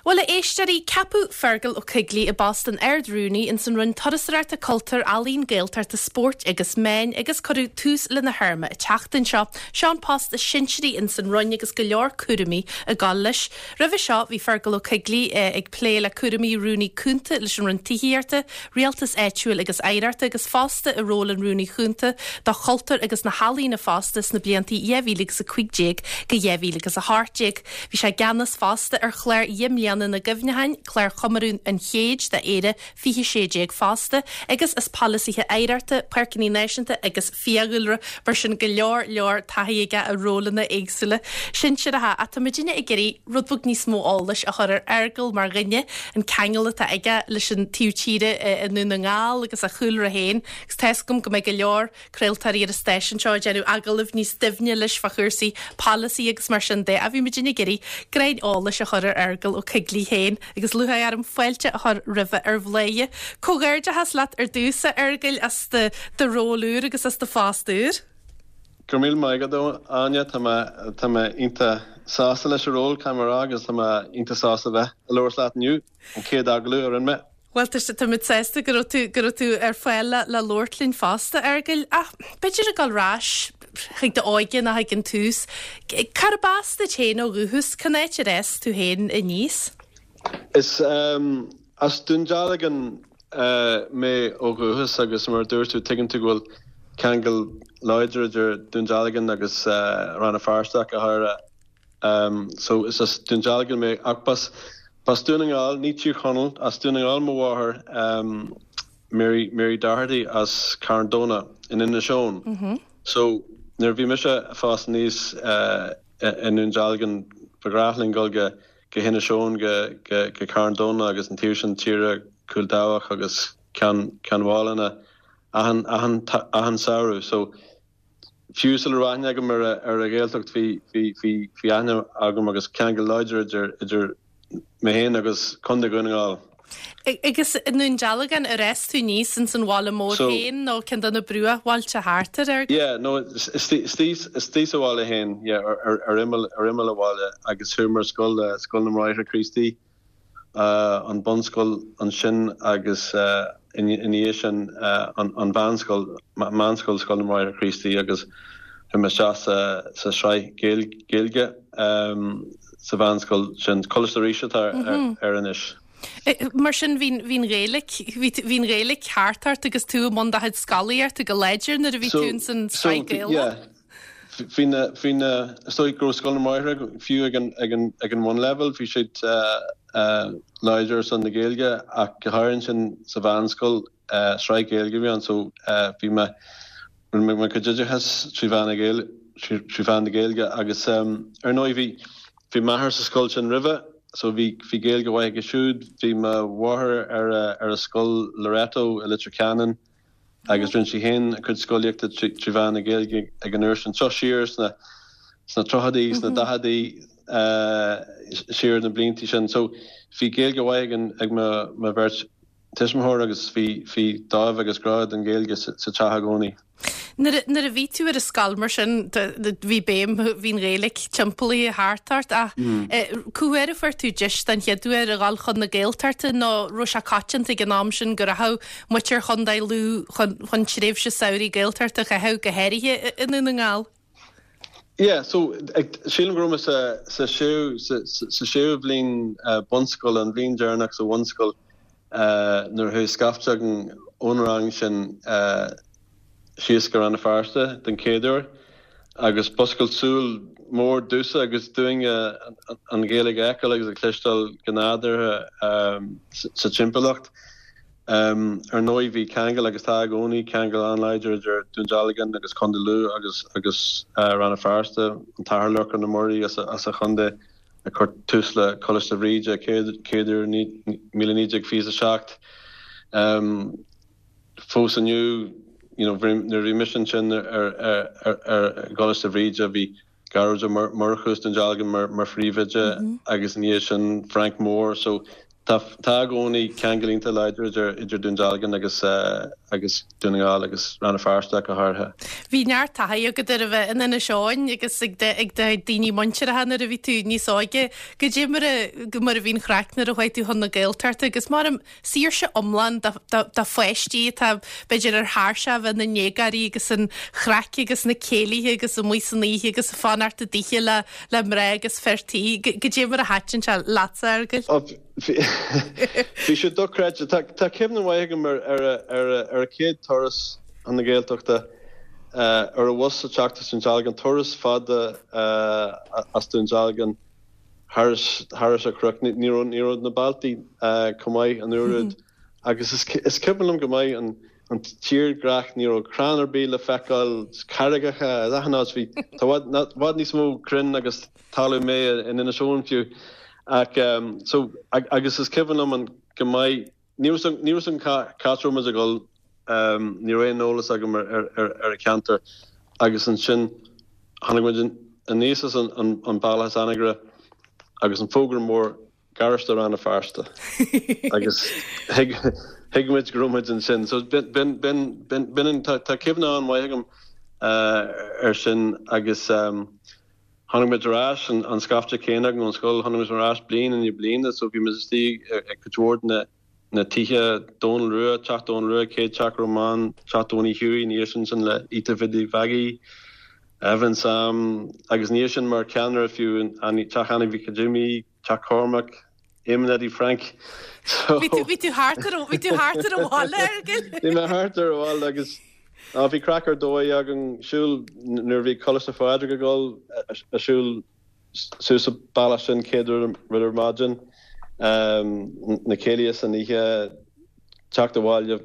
Bhuel, a éisteoirí, ceapadh Fergal Ó Coigligh i bpost an Ard-Rúnaí ins an Roinn Turasóireachta, Cultúir, Ealaíon, Gaeltachta, Spóirt agus Meáin agus cuireadh tús lena théarma an tseachtain seo. Seo an post is sinsearaí ins an Roinn agus go leor cúraimí ag gabháil leis. Roimhe seo bhí Fergal Ó Coigligh ag plé le cúraimí Rúnaí Cúnta leis an Roinn Tithíochta, Rialtais Áitiúil agus Oidhreachta agus fosta i ról an Rúnaí Chúnta do Chultúr agus na hEalaíona fosta sna blianta 2015 go 2018. Bhí sé i gceannas fosta ar chlár Dheich mBliana na gCuimhneacháin, clár chomóradh an chéid d'Éire 2016 fosta, agus as polasaithe oidhreachta, páirceanna náisiúnta agus fiadhúlra, mar sin go leor leor taithí aige i rólanna éagsúla sinsearacha. Ach tá muidinne ag iarraidh rud beag níos mó eolais a chur ar Fheargal mar dhuine, an ceangal atá aige leis an taobh tíre i nDún na nGall agus a chúlra féin, agus tá 'fhios agam go mbeidh go leor craoltóirí ar an stáisiún seo ag déanamh agallaimh níos doimhne leis fá chúrsaí polasaí agus mar sin de. Ach bhí muidinne ag iarraidh greim eolais a chur ar Fheargal Ó Coigligh féin agus lúcháir orm fáilte a chur roimhe ar Bhladhaire. Comhghairdeachas leat ar dtús, a Fheargail, as do do ról úr agus as do phost úr. Go raibh míle maith agat, a Áine. Tá mé tá mé iontach sásta leis an ról, caithfidh mé a rá, agus tá mé iontach sásta bheith ag labhairt leat inniu. An chéad agallamh a rinne mé. Bhuel, tá tá muid sásta go raibh tú, go raibh tú ar fáil le, le labhairt linn fosta, a Fheargail. Ach b'fhéidir ag dul ar ais chuig d'óige nó chuig an tús, cárb as duit féin ó dhúchas? Cén áit ar fhás tú féin aníos? Is as Dún Dealgan mé ó dhúchas agus mar a dúirt tú, tuigeann tú go bhfuil ceangal láidir idir Dún Dealgan agus Rann na Feirste ach go háirithe. So is as Dún Dealgan mé ach b'as b'as Dún na nGall, ní Tír Chonaill, as Dún na nGall mo mháthair Mary Mary Doherty as Carn Domhnach in Inis Eoghain. So nuair a bhí mise ag fás aníos i nDún Dealgan ba ghnách linn dul go go hInis Eoghain go go go Carn Domhnach agus an taobh sin tíre Cúil Dabhach agus Ceann Ceann Mhálanna achan achan achan samhradh. So Fiú sula raibh aithne agam ar an Ghaeltacht bhí bhí aithne agam agus ceangal láidir idir idir mé féin agus Contae Dhún na nGall. Agus i nDún Dealgan ar fhás tú aníos ins an bhaile mór féin nó ceann de na bruachbhailte thart air? Yeah, no, istigh sa bhaile féin, yeah, ar imeall ar imeall an bhaile agus chuaigh mé ar scoil, Scoil na mBráithre Críostaí. an bunscoil ansin agus ina dhiaidh sin an mheánscoil, Meánscoil Scoil na mBráithre Críostaí agus chuaigh mé isteach sa sraith Gaeilge sa mheánscoil sin, Coláiste Rís atá air anois. Mar sin bhí an Ghaeilge, bhí an Ghaeilge thart ort agus tú i mbun do chuid scolaíochta go láidir nuair a bhí tú ins an sraith Gaelach? Bhí na, bhí na, is dóigh go raibh Scoil na mBráithre fiú ag an, ag an, ag an bhunleibhéal, bhí siad láidir ar son na Gaeilge ach go háirithe ansin sa mheánscoil, sraith Gaeilge a bhí ann so bhí mé, rinne mé mo chuid oideachais trí mheán na Gaeilge, trí mheán na Gaeilge agus ar ndóigh bhí, bhí m'athair sa scoil sin roimhe so bhí, bhí Gaeilge mhaith aige siúd, bhí mo mháthair ar a, ar a scoil Loreto i Leitir Ceanainn, agus rinne sí féin a cuid scolaíochta trí mheán na Gaeilge ag an uair sin. Seo siar sna sna tríochaidí, sna daicheadaí, siar na blianta sin. So bhí Gaeilge mhaith ag an ag mo mo bheirt tuismitheoir agus bhí bhí dáimh agus grá don Ghaeilge sa teach i gcónaí. Nuair a bhí tú ar an scoil mar sin, bhí béim, bhí an Ghaeilge timpeallaithe thart ort ach cá huair a fuair tú deis den chéad uair a dhul chun na Gaeltachta nó raibh sé coitianta ag an am sin go rachadh muintir Chontae Lú chun tréimhse samhraidh Gaeltachta a chaitheamh, go háirithe i nDún na nGall? Yeah, so sílim go raibh mé sa sa séú sa séú bhliain bunscoile, an bhliain deireanach sa bhunscoil nuair a chuaigh scaifte againn ón rang sin síos go Rann na Feirste den chéad uair agus b'oscailt súl mór domhsa agus dúinne an Ghaeilge a fheiceáil agus a chloisteáil go nádúrtha sa timpeallacht. Ar ndóigh bhí ceangal agus tá i gcónaí ceangal an-láidir idir Dún Dealgan agus Contae Lú agus agus Rann na Feirste, an tAthair Lorcán Ó Muirí as an chontae a chuir tús le Coláiste Bhríde chéad uair 1927. Fós inniu, you know, nuair a bhí mise ansin ar ar gColáiste Bhríde bhí Gearóid Ó Murchú as Dún Dealgan mar phríomhoide agus ina dhiaidh sin Frank Moore so tá tá i gcónaí ceangal iontach láidir idir idir Dún Dealgan agus. agus Dún na nGall agus Rann na Feirste go háirithe. Bhí neart taithí agat ar a bheith in Inis Eoghain agus ag ag do daoine muinteartha nuair a bhí tú níos óige. Goidé mar a mar a bhí an chraic nuair a chuaigh tú chun na Gaeltachta agus mar saoirse iomlán do pháistí atá b'fhéidir ar thairseach a bheith ina ndéagóirí agus an chraic agus na céilithe agus amuigh san oíche agus ag fanacht i dtithe le le mná agus fir tí. Goidé mar a thaitin sé leatsa, a Fheargail? Bhí sé dochreidte. Tá cuimhne mhaith agam ar ar an chéad turas chun na Gaeltachta ar an bhus ag teacht as Dún Dealgan, turas fada as Dún Dealgan thairis an chnoc. Ní raibh na bealtaí chomh maith an uair úd agus is cuimhin liom go maith an an tírdhreach, ní raibh crann ar bith le feiceáil, carraigeacha achan áit, bhí, tá i bhfad níos mó crainn agus talamh méith in Inis Eoghain fiú. Ach so, agus is cuimhin liom an go maith, ní raibh ní raibh an cá áit a raibh muid ag dul, ní raibh aon eolas agam ar ar an cheantar agus ansin tháinig muid aníos as an bealach as Anagaire agus an fógra mór Garáiste Rann na Feirste agus thuig thuig muid go raibh muid ansin. So b'in b'in b'in b'in b'in an tá tá cuimhne an-mhaith agam air sin agus tháinig muid ar ais an an scaifte céanna againn ón scoil, tháinig muid ar ais bliain i ndiaidh bliana so bhí muid istigh ag cuid mhór de na na tithe, Dónal Rua, Teach Dónal Rua, chéad teach a raibh mé ann, Teach Tony Hughie, ina dhiaidh sin sin le Ita Bhiddy Mhaggie, Evan Sam agus ina dhiaidh sin mar cheannaire fiú Teach Annie Mhic Jimmy, Teach Cormac, Éamonn Eddie Frank. So Bhí tú bhí tú thart ar bhí tú thart ar an bhaile, a Fheargail. Bhí mé thart ar an bhaile agus á bhí craic ar dóigh againn siúl nuair a bhí Coláiste Phádraig ag dul a siúl suas an bealach sin céad rud ar maidin, na céilithe san oíche, teacht abhaile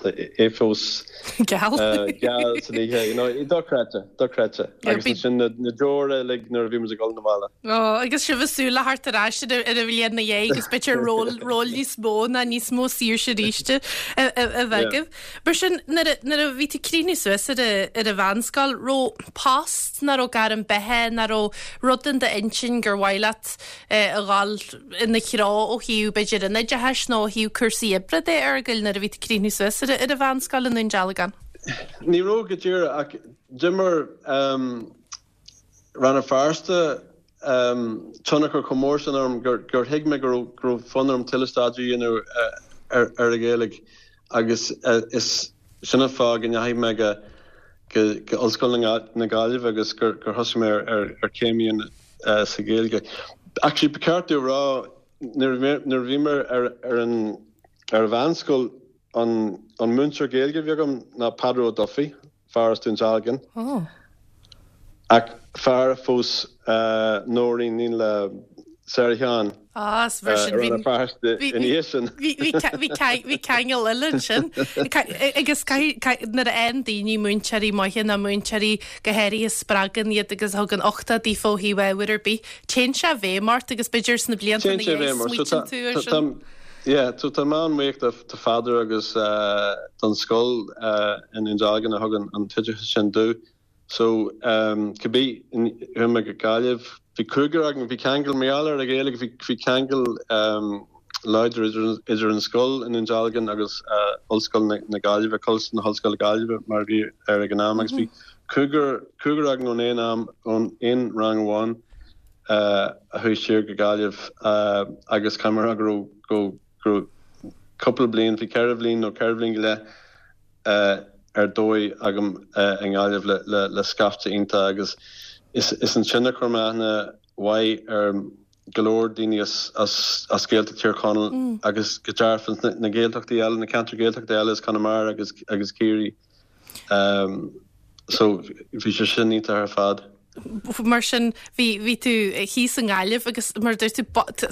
é fós geal geal san oíche, you know, dochreidte, dochreidte. Agus ansin na deora uilig nuair a bhí muid ag dul 'na bhaile. Ó, agus sibh ag súil le theacht ar ais ar an bhliain ina dhiaidh agus b'fhéidir ról, ról níos mó ná níos mó saoirse arís a bheith agaibh. Mar sin, nuair a, nuair a bhí tú ag críochnú suas ar a, ar an mheánscoil, raibh post ná raibh gairm beatha ná raibh rud in d'intinn gur mhaith leat a dhul ina threo ó thaobh, b'fhéidir, an oideachais nó ó thaobh cúrsaí oibre de, a Fheargail, nuair a bhí tú ag críochnú suas ar an mheánscoil i nDún Dealgan? Ní raibh go díreach ach d'imir Rann na Feirste tionchar chomh mór sin orm gur thuig mé go raibh fonn orm tuilleadh staidéir a dhéanamh ar an Ghaeilge agus is sin an fáth go ndeachaigh mé go Ollscoil na Gaillimhe agus gur thosaigh mé ar chéim a dhéanamh sa Ghaeilge. Actually, ba cheart domh a rá, nuair a bhí mé ar an mheánscoil, an múinteoir Gaeilge a bhí agam ná Peadar Ó Dufaigh, fear as Dún Dealgan, ach fear a phós Nóirín, iníon le Sarah Sheáin. Ah, is bhí sin, bhí, bhí ceangal eile ansin. Agus nuair a fhaigheann daoine múinteoirí maithe nó múinteoirí go háirithe a spreagann iad agus a thugann uchtach daofa ó thaobh ábhair ar bith, téann sé i bhfeidhm ort agus b'fhéidir sna blianta ina dhiaidh smaoitíonn tú air sin. Yeah, so tá mé an-bhuíoch do Pheadar agus don scoil i nDún Dealgan a thug an t-oideachas sin domh. So, cibé, chuaigh mé go Gaillimh, bhí cúigear againn, bhí ceangal, mar gheall ar an Ghaeilge, bhí, bhí ceangal láidir idir, idir an scoil i nDún Dealgan agus Ollscoil na Gaillimhe, Coláiste na hOllscoile Gaillimhe mar a bhí air ag an am agus bhí cúigear, cúigear againn ón aon am, ón aon rang amháin a chuaigh siar go Gaillimh agus caithfidh mé a rá go raibh, go, go raibh cúpla bliain, bhí ceithre bhliain nó ceithre bhliain go leith, ar dóigh agam i nGaillimh le scaifte iontach agus is ansin a chuir mé aithne mhaith ar go leor daoine as Gaeltacht Thír Chonaill agus go dearfa na Gaeltachtaí eile, na ceantair Gaeltachta eile as Conamara agus agus Ciarraí. So bhí sé sin iontach ar fad. Mar sin, bhí, bhí tú thíos i nGaillimh agus mar a dúirt tú,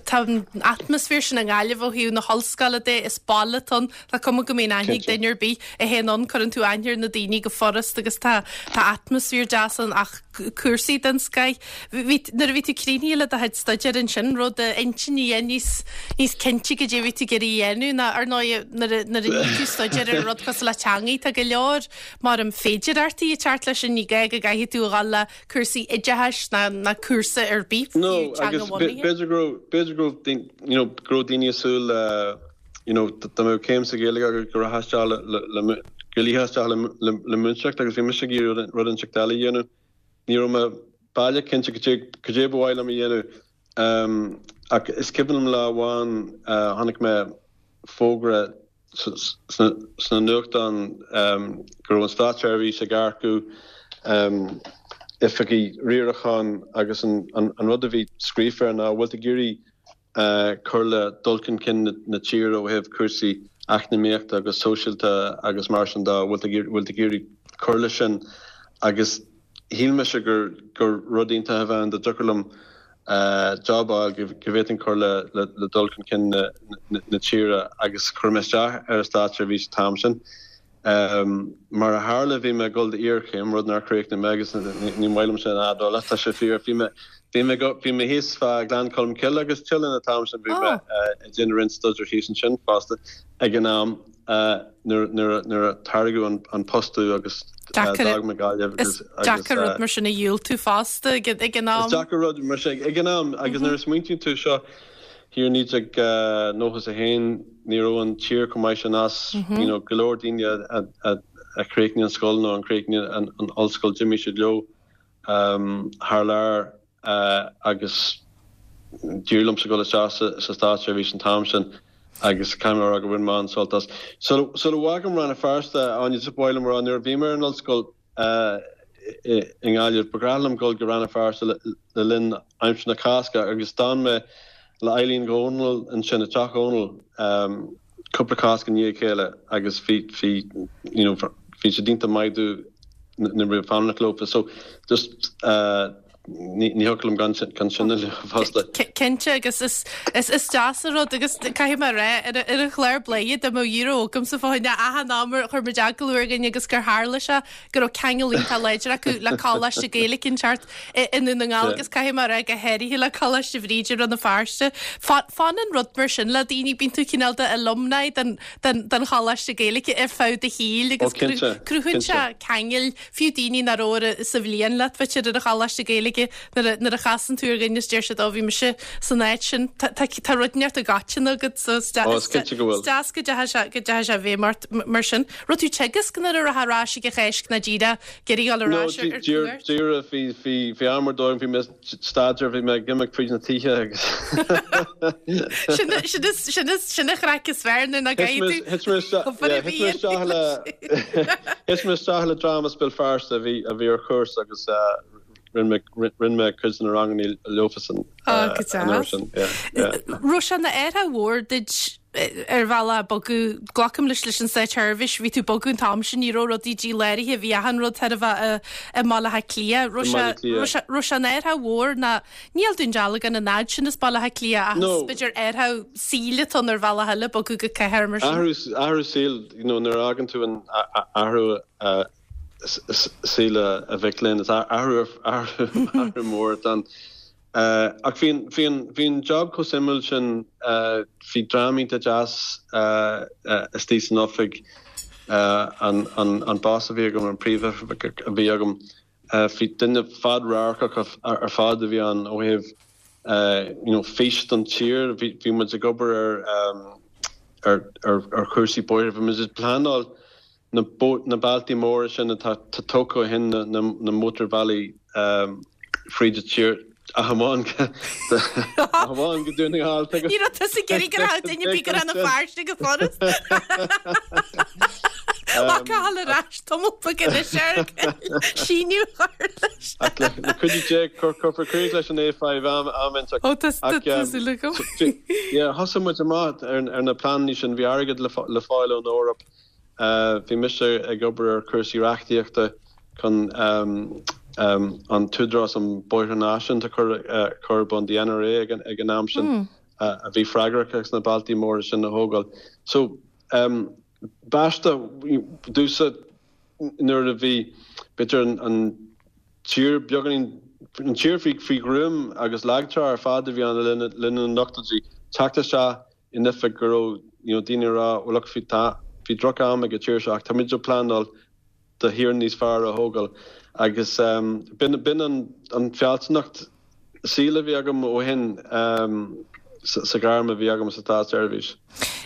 tá an atmaisféar sin i nGaillimh ó thaobh na hollscoile de, is baile atá ann, tá cuma go mbíonn aithne ag duine ar bith a théann ann, cuireann tú aithne ar na daoine go furast agus tá, tá atmaisféar deas ann ach cúrsaí den scoith. Bhí, nuair a bhí tú críochnaithe le do chuid staidéir ansin, raibh d'intinn níos, níos cinnte goidé a bhí tú ag iarraidh a dhéanamh ná ar ndóigh nuair a, nuair a ní tú staidéar ar rud cosúil le teangaí, tá go leor Mar an féidearthachtaí ag teacht leis sin, ní gá go gcaithfidh tú a dhul le cúrsaí oideachais ná ná cúrsa ar bith, fiú No, agus teanga-bhunaithe. b'fhéidir go raibh, b'fhéidir go raibh daoine, you know, go raibh daoine ag súil le, you know, dá mbeadh céim sa Ghaeilge agat go rachfá isteach le, le, le, Go ligfeá isteach le múinteoireacht agus bhí mise ag iarraidh rud inteacht eile a dhéanamh. Ní raibh mé baileach cinnte cad é ba mhaith liom a dhéanamh ach is cuimhin liom lá amháin chonaic mé fógra sna nuachtáin go raibh an státseirbhís ag earcú oifigigh riaracháin agus an rud a bhí scríofa air ná bhfuil tú ag iarraidh cur le dul chun cinn na tíre ó thaobh cúrsaí eacnamaíochta agus sóisialta agus mar sin de, bhfuil tú ag iarraidh cur leis sin agus shíl mise gur gur rud iontach a bheadh ann dá dtiocfadh liom job a fháil go bhféadfainn cur le dul chun cinn na tíre agus chuir mé isteach ar an státseirbhís an t-am sin. Mar a tharla, bhí mé ag dul d'iarchéim, rud nár chríochnaigh mé agus ní maith liom sin a admháil ach tá sé fíor. Bhí mé, bhí mé, bhí mé thíos fá Ghleann Cholm Cille agus Teileann an t-am sin, bhí mé ag déanamh roinnt staidéir thíos ansin fosta ag an am nuair, nuair, nuair a tairgeadh an post domh agus d'fhág mé Gaillimh agus, agus. Is deacair rud mar sin a dhiúltú fosta ag an am. Is deacair rud mar sin ag an am agus nuair a smaointíonn tú seo, Thiar i 1991 ní raibh an tír chomh maith sin as, you know, go leor daoine a chríochnaigh an scoil nó a chríochnaigh an ollscoil d'imigh siad leo thar lear agus d'éirigh liomsa dul isteach sa státseirbhís an t-am sin agus caithfidh mé a rá go bhain mé an-sult as. Sula bhfágaim Rann na Feirste, Áine, just ba mhaith liom a rá nuair a bhí mé ar an ollscoil, i nGaillimh. Ba ghnách liom dul go Rann na Feirste le linn aimsir na Cásca agus d'fhan mé le Eileen Dhónaill ansin, i dteach Dhónaill, cúpla Cásc i ndiaidh a chéile agus bhí, bhí, you know, bhí siad iontach maith domh nuair a bhí mé ag fanacht leofa. So just ní thiocfadh liom gan sin a lua fosta. Cinnte agus is is deas an rud agus caithfidh mé a rá ar ar an chlár Bladhaire dá mbeadh euro agamsa fá choinne achan am ar chuir muid agallamh ar dhuine agus gur tharla sé go raibh ceangal iontach láidir acu le Coláiste Gaeilge inteacht i nDún na nGall agus caithfidh mé a rá go háirithe le Coláiste Bhríde i Rann na Feirste. Fanann rud mar sin le daoine, bíonn tú cineál de alumni den den den Choláiste Gaeilge ar feadh do shaoil agus cruthaíonn sé ceangail Fiú daoine nach raibh sa bhliain leat, b'fhéidir, ar an Choláiste Gaeilge, nuair a, nuair a chasann tú ar dhuine is deir siad, ó, bhí mise san áit sin. Tá, tá, tá rud inteacht i gcoiteann agat, so is Ó, is cinnte go bhfuil. is deas go dteachaigh sé, go dteachaigh sé i bhfeidhm ort mar sin. Raibh tú ag teagasc nuair a raibh ar ais ag an Cháisc ná díreach ag iarraidh dul ar No, ais ar, ar cuairt? díreach, bhí, bhí, bhí am ar dóigh, bhí mé staidéar, bhí mé ag imeacht fríd na tithe agus Sin, sin is, sin is, sin an chraic is fearr nuair nach gcaithfidh tú Thit mé isteach, obair a yeah, thit mé isteach le, thit mé isteach le dream as Béal Feirste a bhí, a bhí ar chúrsa agus rinne mé, rinne mé cuid de na ranganna leofasan Ó, go an uair deas. sin, yeah, yeah. Raibh sé ina athrú mhór duit ar bhealach bogadh, glacaim leis leis an Státseirbhís, bhí tú ag bogadh an t-am sin, ní raibh rudaí díláraithe, bhí achan rud chóir a bheith i mBaile Átha Cliath. Raibh sé, raibh sé, raibh sé ina athrú mhór ná, níl Dún Dealgan an fhad sin as Baile Átha Cliath ach is b'fhéidir athrú saoil atá ann ar bhealach eile bogadh go cathair mar sin. Athrú, athrú saoil, you know, nuair a fhágann tú an athrú saoil a mhic léinn, is athrú, athrú, athrú mór atá ann. Ach bhí an, bhí an, bhí an job chomh suimiúil sin, bhí dream iontach deas istigh san oifig, an, an, an boss a bhí agam, an príomhoifigeach a bhí agam, bhí duine fad-radharcach ar fad a bhí ann ó thaobh you know fís don tír, bhí, bhí muid ag obair ar, ar, ar, ar chúrsaí bóithre, bhí muid ag pleanáil na bealtaí móra sin atá tógtha ó shin, na mótarbhealaí fríd an tír, ach amháin go Dún na nGall. Ní raibh tusa ag iarraidh go raibh duine ar bith go Rann na Feirste go furast. Lá Cathal ar ais tamall beag anois ar síniú a chur leis. Ach le cuidiú Dé cuirfear críoch leis an A5 am inteacht. Ó tá súil agam. Yeah, thosaigh muid amach ar na pleananna sin, bhí airgead le fáil ón Eoraip. Bhí mise ag obair ar chúrsaí reachtaíochta chun an tÚdarás um Bóithre Náisiúnta a chur ar bun, the NRA ag an am sin, a bhí freagrach as na bealtaí móra sin a thógáil. So, b'aisteach domhsa nuair a bhí, b'fhéidir, an tír beagáinín, an tír faoi ghruaim agus lagtrá ar fad a bhí ann le linn na n-ochtóidí, teacht isteach in oifig go raibh you know daoine ag rá well look bhí tá bhí droch am ag an tír seo ach táimid ag pleanáil do thír níos fearr a thógáil agus um b'in b'in an an fealsúnacht saoil a bhí agam ó shin um sa sa ghairm a bhí agam sa státseirbhís.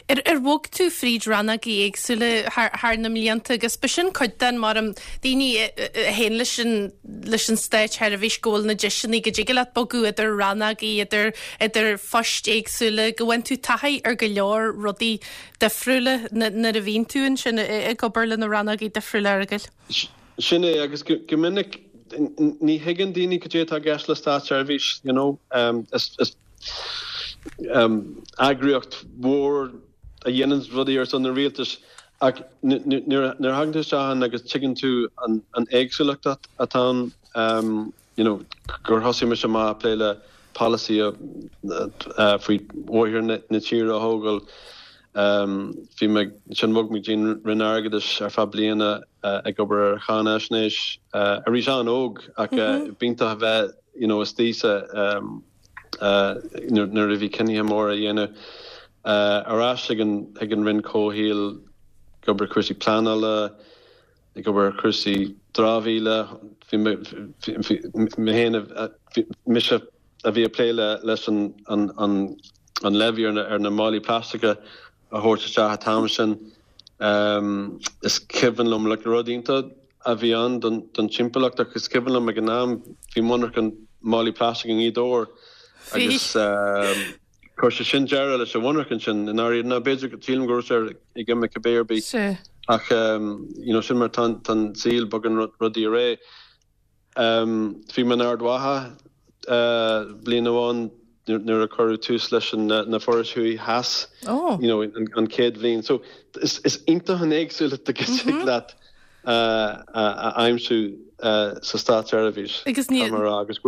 Ar ar bhog tú fríd rannógaí éagsúla thar thar na mblianta agus b'shin cuid den mar um daoine a théann leis an leis an státsheirbhís go bhfuil na deiseanna go dtig leat bogadh idir rannógaí idir idir phoist éagsúla go bhfaigheann tú taithí ar go leor rudaí difriúla nuair a bhíonn tú ansin ag obair le na rannógaí difriúla a Fhearghail. Sin é, agus go minic ní thuigeann daoine cad é atá i gceist le státseirbhís, you know. Is eagraíocht mhór a dhéanann rudaí ar son an rialtais ach nuair a thagann tú isteach ann agus tuigeann tú an éagsúlacht atá ann, you know, gur thosaigh mise amach ag plé le polasaí faoi bhóithre na tíre a thógáil. Bhí mé, ansin bhog mé go dtí an Roinn Airgeadais ar feadh bliana ag obair ar cháinaisnéis, arís an-óg ach b'iontach a bheith, you know, istigh sa, nuair a bhí cinnithe móra á dhéanamh. Ar ais ag an, ag an Roinn Comhshaoil ag obair ar chúrsaí pleanála, ag obair ar chúrsaí dramhaíola. Bhí mé, bhí mé féin, bhí mise a bhí ag plé leis an an levy ar na málaí plaisteacha a thabhairt isteach an t-am sin. Is cuimhin liom, like, rud iontach a bhí ann don timpeallacht ach is cuimhin liom ag an am bhí monarcha málaí plaisteach i nGaoth Dobhair agus Chuir sé sin deireadh leis an mhonarcha sin i ndáiríre. Nó b'fhéidir, sílim go raibh sé ag imeacht cibé ar bith. Ach you know sin mar tá an saol, bogann rudaí ar aghaidh. Bhí mé in Ard Mhacha bliain amháin nuair a cuireadh tús leis na forais thuaidh theas, you know an chéad bhliain. So is iontach an éagsúlacht a thig leat a aimsiú sa státseirbhís. Agus ní. Agus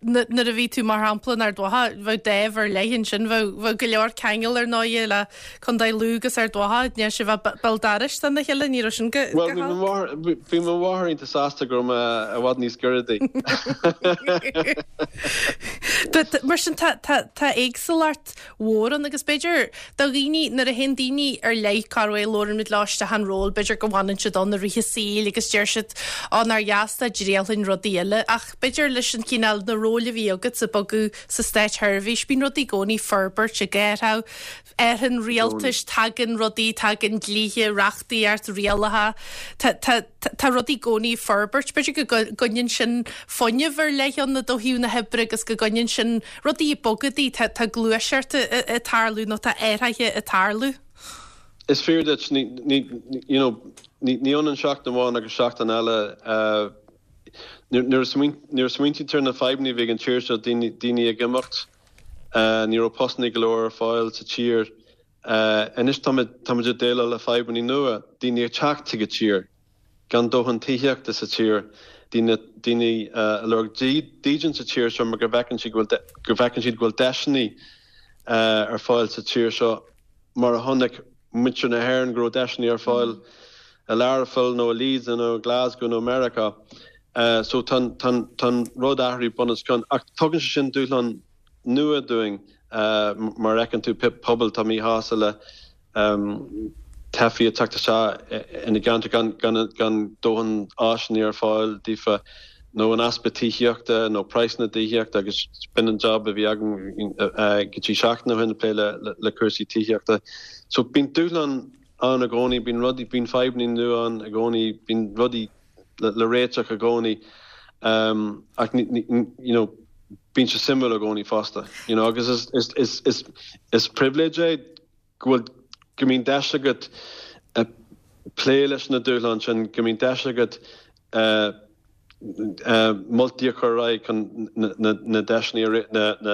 nuair a bhí tú mar shampla in Ard Mhacha, bheadh dáimh ar leith ansin, bheadh, bheadh go leor ceangal ar ndóighe le Contae Lú agus Ard Mhacha, ní sibh a bheith béal dorais dona chéile, ní raibh sin go, Bhuel, bhí mo mháthair, bhí mo mháthair iontach sásta go raibh mé i bhfad níos giorra di. Mar sin tá, tá, tá éagsúlacht mhór ann agus b'fhéidir do dhaoine, nuair a théann daoine ar leith, cá raibh, labhrann muid leo isteach an ról, b'fhéidir go bhfanann siad ann i rith a saoil agus deir siad, ó nár dheas dá dtriailfinn rudaí eile ach b'fhéidir leis an chineál, na róil a bhí agat ag bogadh sa státsheirbhís, bíonn rudaí i gcónaí ag forbairt, ag athrú, athraíonn rialtais, tagann rudaí, tagann dlíthe, reachtaíocht, rialacha, tá, tá, tá rudaí i gcónaí ag forbairt. B'fhéidir go gcoinníonn sin fuinneamh ar leith ann ó thaobh na hoibre agus go gcoinníonn sin rudaí ag bogadh, tá, tá gluaiseacht ag tarlú nó tá athruithe ag tarlú. Is fíor duit, ní, ní, you know, ní, ní ionann seachtain amháin agus seachtain eile. Nuair a smaointíonn tú ar na fadhbanna a bhí ag an tír seo, daoine, daoine ag imeacht, Ní raibh postanna go leor ar fáil sa tír. Anois táimid ag déileáil le fadhbanna nua, daoine ag teacht chuig an tír, gan dóthain tithíochta sa tír, daoine daoine ag lorg dídean sa tír seo mar go bhfeiceann siad go bhfuil go bhfeiceann siad go bhfuil deiseanna ar fáil sa tír seo mar a chonaic muintir na hÉireann go raibh deiseanna ar fáil i Learpholl nó i Leeds nó i Glasgow nó i Meiriceá. So tá an rud athraithe bun os cionn. Ach tugann sé sin dúshlán nua dúinn mar fheiceann tú pobail atá míshásta le teifigh ag teacht isteach ina gceantar gan dóthain áiseanna ar fáil daofa nó an easpa tithíochta nó praghsanna tithíochta agus b'in an job a bhí agam go dtí seachtain ó shin ag plé le cúrsaí tithíochta. So bíonn dúshlán ann i gcónaí, bíonn rudaí, bíonn fadhbanna nua ann i gcónaí, bíonn rudaí le réiteach i gcónaí ach you know bíonn sé suimiúil i gcónaí fosta you know agus is is is is is pribhléid é go bhfuil go mbíonn deis agat plé leis na dúshláin sin, go mbíonn deis agat moltaí a chur ar aghaidh chun na deiseanna,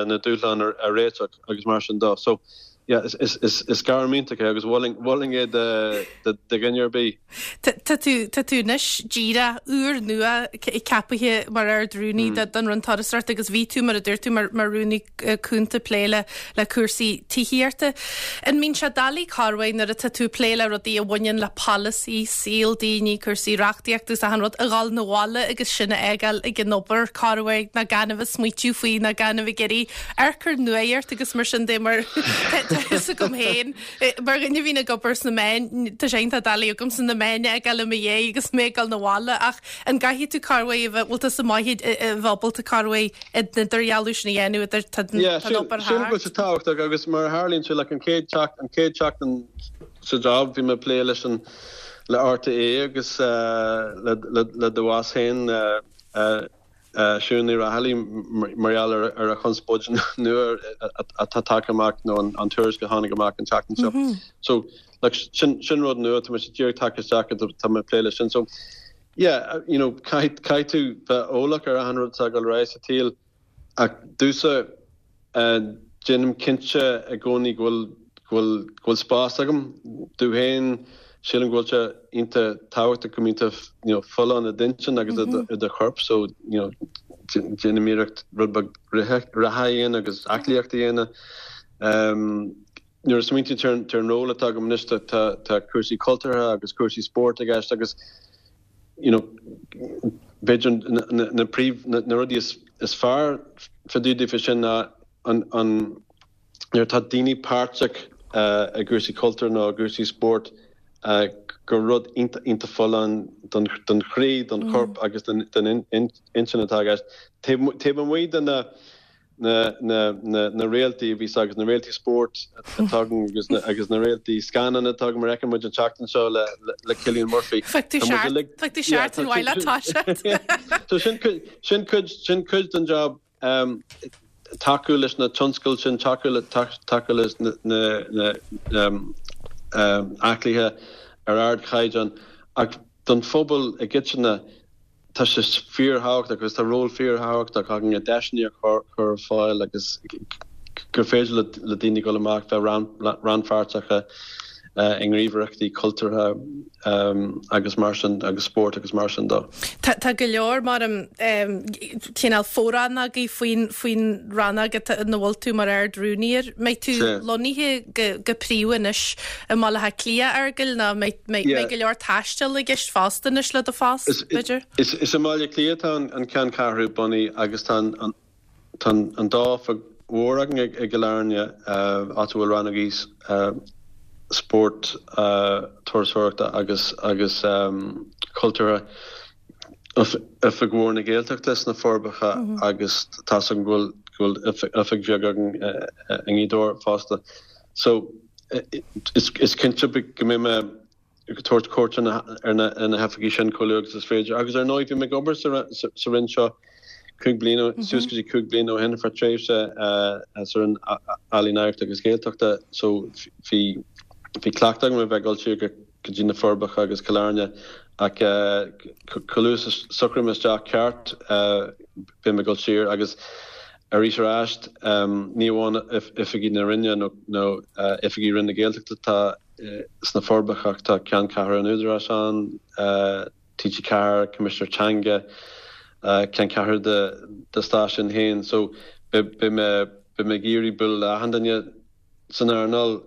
na dúshláin a réiteach agus mar sin de. So, yeah, is gairm iontach é agus mholfainn é do dhuine ar bith. Tá tú, tá tú anois díreach úr nua ceapaithe mar Ard-Rúnaí don Roinn Turasóireachta agus bhí tú, mar a dúirt tú, mar Rúnaí Cúnta ag plé le le cúrsaí tithíochta. An mbíonn sé doiligh corruair nuair atá tú ag plé le rudaí a bhaineann le polasaí, saol daoine, cúrsaí reachtaíochta agus achan rud, a dhul 'na bhaile agus sin a fhágáil ag an obair corruair ná gan a bheith ag smaoitiú faoi ná gan a bheith ag iarraidh amharc ar nuacht agus mar sin de mar tá a fhios agam féin, mar dhuine a bhíonn ag obair sna meáin, tá sé iontach doiligh agamsa na meáin a fhágáil i mo dhiaidh agus mé ag dul 'na bhaile ach an gcaithfidh tú corruair a bheith, bhfuil tusa maith a bheith ábalta corruair an idirdhealú sin a dhéanamh idir tá an obair thart. Sílim go bhfuil sé tábhachtach agus mar a tharlaíonn sé like an chéad an chéad seachtain sa job bhí mé ag plé leis an le RTÉ agus le le do bhoss féin Siún Ní Raghallaigh mar gheall ar a chonspóid nua atá tagtha amach nó an tuairisc a tháinig amach an tseachtain seo. So like sin sin rud nua tá mise díreach tagtha isteach tá mé ag plé leis sin. So yeah, you know, caithfidh caithfidh tú bheith eolach ar achan rud atá ag dul ar aghaidh sa tsaol ach domhsa Déanaim cinnte i gcónaí go bhfuil, go bhfuil, go bhfuil spás agam domh féin. Sílim go bhfuil sé iontach tábhachtach go mbíonn tú you know folláin i d'intinn agus i do chorp so you know déanaim iarracht rud beag reatha a dhéanamh agus aclaíocht a dhéanamh. Nuair a smaointíonn tú ar an ról atá agam anois tá cúrsaí cultúrtha agus cúrsaí spóirt i gceist agus you know b'fhéidir na príomh na rudaí is fearr fá dtaobh daofa sin ná an an nuair atá daoine páirteach i gcúrsaí cultúir nó i gcúrsaí spóirt gur rud iontach iontach folláin don don chroí, don chorp agus don don intinn atá i gceist. Taobh amuigh de na na na réaltaí a bhíos agus na réaltaí spóirt atá againn agus na agus na réaltaí scannán atá againn mar a fheiceann muid an tseachtain seo le le Cillian Murphy. Bheadh tú seart bheadh tú seart an mhaith leat toiseacht. So sin cuid sin cuid sin cuid den job um, tacú leis na tionscail sin tacú le tacú leis na na na um, um, aclaithe ar ardchaighdeán ach don phobal i gcoitinne Tá sé fíorthábhachtach agus tá ról fíorthábhachtach againn deiseanna a chur ar fáil agus gur féidir le daoine dul amach bheith rannpháirteach i ngníomhaireachtaí cultúrtha agus mar sin agus spórt agus mar sin de. Tá go leor mar cineál fo-rannógaí faoin faoin rannóg ina bhfuil tú mar Ard-Rúnaí air. Mbeidh tú lonnaithe go príomha anois i mBaile Átha Cliath, a Fheargail, nó mbeidh go leor taistil i gceist fosta anois le do phost, b'fhéidir? Is i mBaile Átha Cliath atá an ceanncheathrú bunaithe agus tá an dá oifig mhór againn i gCill Airne, áit a bhfuil rannógaí spóirt, turasóireachta agus agus cultúrtha. Oifig mhór na Gaeltachta sna Forbacha agus tá's agam go bhfuil oifig bheag againn i nGaoth Dobhair fosta. So is cinnte go mbeidh mé ag tabhairt cuairt ar na hoifigí sin chomh luath agus is féidir. Agus ar ndóigh bhí mé ag obair sa Roinn seo 5 bliana, suas go dtí 5 bliana ó shin ar feadh tréimhse sa Roinn Ealaíon Oidhreachta agus Gaeltachta so bhí cleachtadh agam a bheith ag dul siar go go dtí na Forbacha agus Cill Airne ach chomh luath is a socraím isteach ceart beidh mé ag dul siar agus arís ar ais ní amháin oifigí na Roinne nó oifigí Roinn na Gaeltachta atá sna Forbacha ach tá ceanncheathrú an Údaráis ann, TG4, Coimisinéir Teanga, ceanncheathrú do stáisiún féin so beidh mé ag iarraidh bualadh le achan duine. san earnáil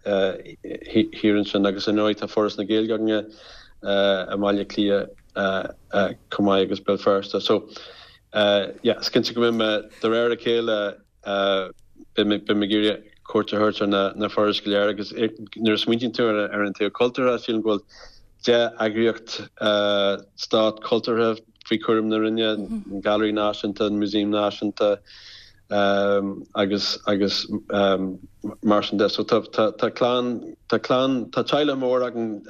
thiar ansin agus ar ndóigh tá Foras na Gaeilge againne i mBaile Átha Cliath chomh maith agus Béal Feirste. So yeah, is cinnte go mbeidh mé de réir a chéile beidh mé ag iarraidh cuairt a thabhairt ar na forais go léir agus nuair a smaointíonn tú ar an taobh cultúrtha sílim go bhfuil 10 eagraíocht stát cultúrtha faoi chúram na Roinne, an Gailearaí Náisiúnta, an Músaem Náisiúnta, agus agus mar sin de. So tá tá clann tá clann tá teaghlach mór againn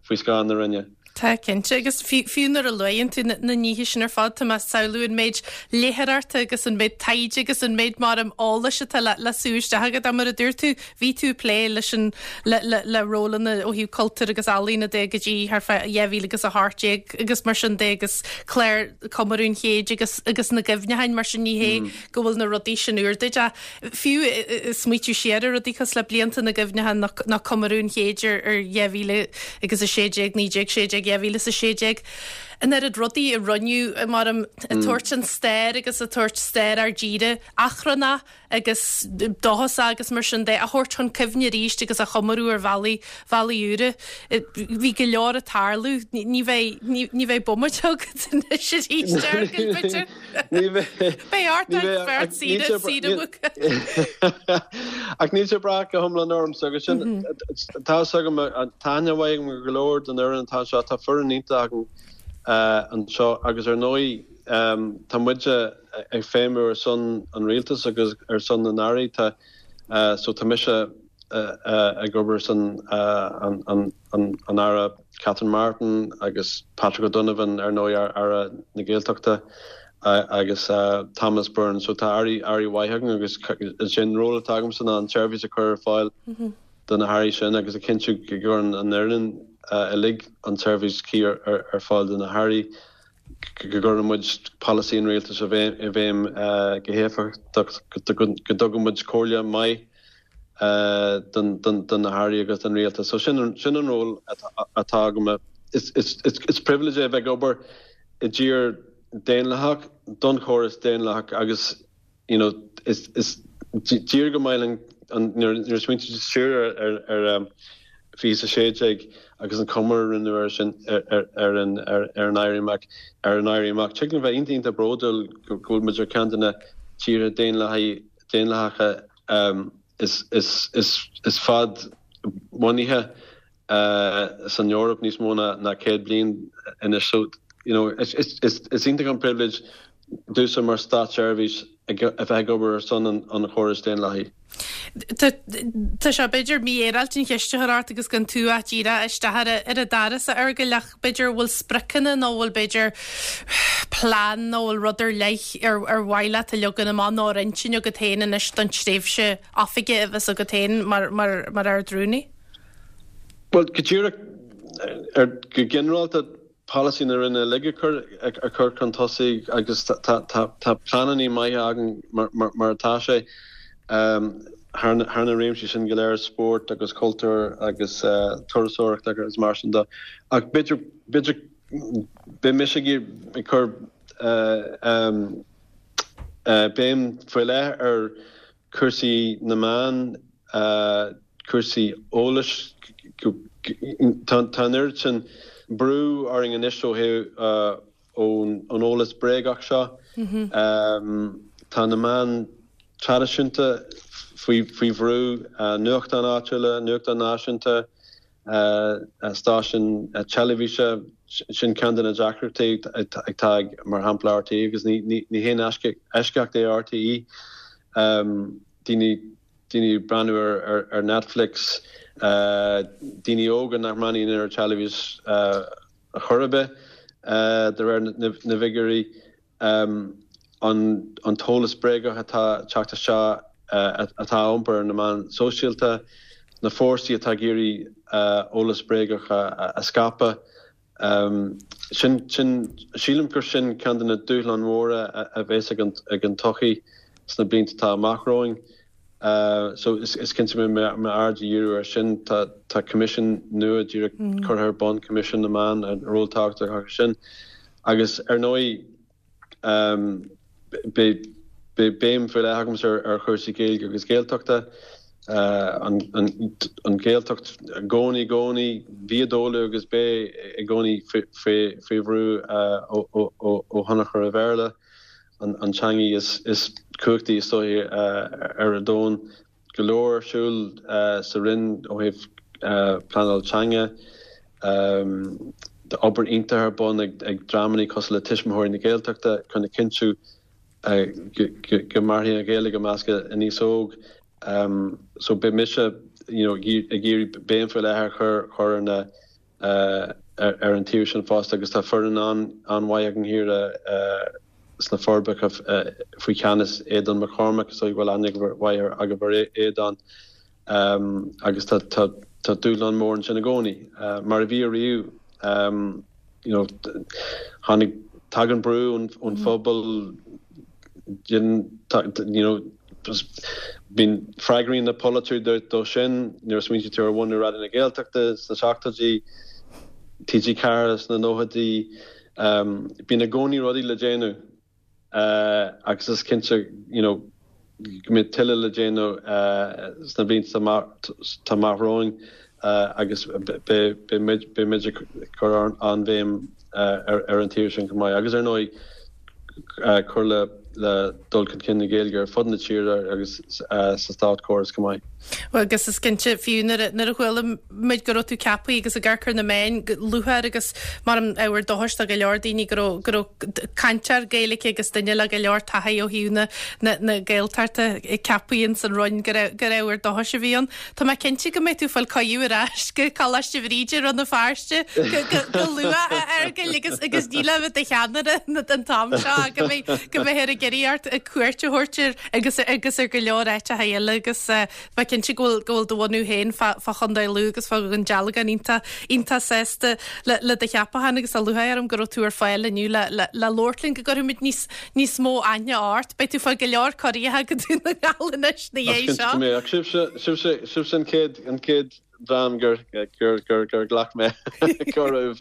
faoi scáth na Roinne. Tá, cinnte. Agus fiú nuair a luann tú na nithe sin ar fad, tá mé ag samhlú an méid léitheoireachta agus an méid taighde agus an méid mar eolais atá le le sú isteach agat. Mar a dúirt tú, bhí tú ag plé leis an le le le rólanna ó thaobh cultúir agus ealaíona de go dtí thart fá 2018 agus mar sin de agus clár Comóradh an Chéid agus agus na gcuimhneacháin mar sin ní hé go bhfuil na rudaí sin úr duit ach fiú smaoitiú siar ar rudaí cosúil le blianta na gcuimhneachán nó Comóradh an Chéid ar ar 2016, 1916, 2016. An oiread rudaí a rinneadh mar ag tabhairt an stair agus ag tabhairt stair ár dtíre achrannach agus dóchasach agus mar sin de a thabhairt chun cuimhne arís agus a chomóradh ar bhealaí, bhealaí úra. Bhí go leor ag tarlú. Ní bheidh, ní bheidh bomaite agat anois arís, a Fheargail, b'fhéidir. Ní bheidh. Beidh ort ort beirt saoire, saoire mhuca. Ach níl sé ag brath go hiomlán ormsa agus sin, tá fhios agam, tá aithne mhaith agam ar go leor den fhoireann atá anseo, tá foireann iontach againn anseo agus ar ndóigh tá muide ag feidhmiú ar son an rialtais agus ar son na n-airí, tá, so tá mise ag obair ar son an Aire Catherine Martin agus Patrick O'Donovan ar ndóigh Aire na Gaeltachta agus Thomas Byrne. So tá airí airí mhaith againn agus is é an ról atá agamsa ná an tseirbhís a chur ar fáil do na hairí sin agus a chinntiú go gcuireann an fhoireann uilig an tseirbhís chuí ar fáil do na hairí, go gcuireann muid polasaí an rialtais i bhfeidhm go héifeachtach, go dtugann muid comhairle maith do na hairí agus don rialtas. So sin an ról atá agam. Is pribhléid é a bheith ag obair i dtír daonlathach, don chóras daonlathach agus you know is tír go maith linn nuair a smaointíonn tú siar ar 2016 agus an comóradh a rinneadh air sin ar an Éirí Amach ar an Éirí Amach. Tig linn bheith iontach iontach bródúil go bhfuil muid ar ceann de na tíortha daonlathacha is fad-bhunaithe san Eoraip níos mó ná 100 bliain anois. So, you know, is iontach an pribhléid domhsa mar státseirbhíseach a bheith ag obair ar son an chórais daonlathaigh. Tá sé b'fhéidir mífhéaráilte an cheist a chur ort agus gan tú ach díreach isteach ar an doras a Fheargail ach b'fhéidir bhfuil spriocanna nó bhfuil b'fhéidir plean nó bhfuil rud ar leith ar ar mhaith leat a leagan amach nó ar intinn agat féin anois don tréimhse oifige a bheas agat féin mar mar mar Ard-Rúnaí? Bhuel, go díreach ar go ginearálta polasaí na Roinne uilig a chur a chur chun tosaigh agus tá tá tá pleananna maithe againn mar mar mar atá sé thar na thar na réimsí sin go léir, spórt agus cultúr agus turasóireacht agus mar sin de. Ach b'fhéidir b'fhéidir beidh mise ag ag cur béim faoi leith ar cúrsaí na meán, cúrsaí eolais, tá an oiread sin brú orainn anois ó thaobh ón eolas bréagach seo. Tá na meáin traidisiúnta faoi bhrú, nuachtáin áitiúla, nuachtáin náisiúnta, stáisiúin teilifíse, sin ceann de na deacrachtaí atá ag, mar shampla, RTÉ agus ní haon eisceacht é RTÉ. Daoine daoine ag breathnú ar Netflix, daoine óga nach mbreathnaíonn ar teilifís ar chor ar bith, de réir na bhfigiúirí. an t-eolas bréagach atá ag teacht isteach, atá á iompar ar na meáin sóisialta, na fórsaí atá ag iarraidh eolas bréagach a scaipeadh. Sin, sin, sílim gur sin ceann de na dúshláin mhóra a bheas ag an tsochaí sna blianta atá amach romhainn. So is cinnte go mbeidh m'aird á dhíriú air sin. Tá tá coimisiún nua díreach curtha ar bun, Coimisiún na Meán, ról tábhachtach acu sin. Agus ar ndóigh beidh beidh béim faoi leith agamsa ar chúrsaí Gaeilge agus Gaeltachta. An an Ghaeltacht i gcónaí i gcónaí, bhí i dtólamh agus beidh i gcónaí faoi faoi bhrú ó ó ó thionchar an Bhéarla. an teangaidh is cumhachtaí is dóiche ar an domhan. Go leor ar siúl sa Roinn ó thaobh pleanáil teanga. Tá obair iontach ar bun ag dreamanna cosúil le Tuismitheoirí na Gaeltachta chun a chinntiú go mairfidh an Ghaeilge i measc an aos óg. So beidh mise you know ag iarraidh béim faoi leith a chur ar na ar an taobh sin fosta agus tá foireann an-mhaith againn thiar sna Forbacha faoi cheannas Aodán Mac Cormaic, is dóigh go bhfuil aithne mhaith agaibh ar Aodán agus tá dúshlán mór ansin i gcónaí, mar a bhí ariamh. You know, tháinig, tagann brú ón phobal, you know, bíonn freagraíonn na polaiteoirí dó sin, nuair a smaointíonn tú ar bhunú Raidió na Gaeltachta sna seachtóidí, TG4 sna nóchaidí. Bíonn i gcónaí rudaí le déanamh agus is cinnte you know go mbeidh tuilleadh le déanamh sna blianta atá amach romhainn agus beidh muid ag cur an-bhéim ar an taobh sin chomh maith. Agus ar ndóigh cur le dul chun cinn na Gaeilge ar fud na tíre agus sa státchóras chomh maith. Bhuel, agus is cinnte, fiú nuair a chuala muid go raibh tú ceaptha agus ag amharc ar na meáin go lúcháir agus mar an ábhar dóchais do go leor daoine go raibh go raibh cainteoir Gaeilge agus duine le go leor taithí ó thaobh na na na Gaeltachta ceaptha ins an Roinn gur gur ábhar dóchais a bhí ann. Tá mé cinnte go mbeidh tú ag fáil cuireadh ar ais go Coláiste Bhríde i Rann na Feirste go go go luath a Fheargail agus agus ní le bheith i do cheannaire an t-am seo ach go mbeidh go mbeifear ag iarraidh ort cuairt a thabhairt ar agus agus ar go leor áiteacha eile agus tá mé cinnte go bhfuil go bhfuil do bhunú féin fá fá Chontae Lú agus fá Dhún Dealgan iontach iontach sásta le le do cheapachán agus tá lúcháir orm go raibh tú ar fáil inniu le le le labhairt linn go gcuirfimid níos níos mó aithne ort. Beidh tú ag fáil go leor cuirí go Dún na nGall anois na dhiaidh seo. Is cinnte go mbeidh. Ach sibhse sibhse sibhse an chéad an chéad dream gur gur ghlac mé cuireadh.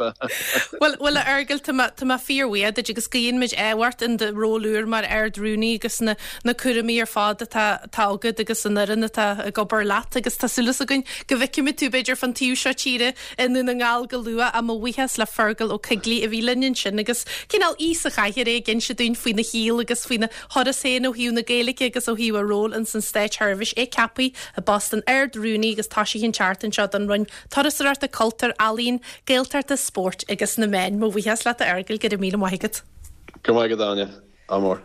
Bhuel, bhuel a Fheargail, tá mé, tá mé fíorbhuíoch duit agus guíonn muid ádh ort in do ról úr mar Ard-Rúnaí agus na, na cúraimí ar fad atá, atá agat agus an fhoireann atá ag obair leat agus tá súil againn go bhfeicfimid tú b'fhéidir fán taobh seo tíre i nDún na nGall go luath. Ach mo bhuíochas le Fergal Ó Coigligh a bhí linn ansin agus cineál aoi sa chathaoir é ag inse dúinn faoina shaol agus faoina thuras féin ó thaobh na Gaeilge agus ó thaobh a ról ins an Státseirbhís, é ceaptha i bpost an Ard-Rúnaí agus toisithe an tseachtain seo don Roinn Turasóireachta, Cultúir, Ealaíon, Gaeltachta, Spóirt agus na Meáin. Mo bhuíochas leat a Fheargail, go raibh míle maith agat. Go raibh maith agat Áine, ádh mór.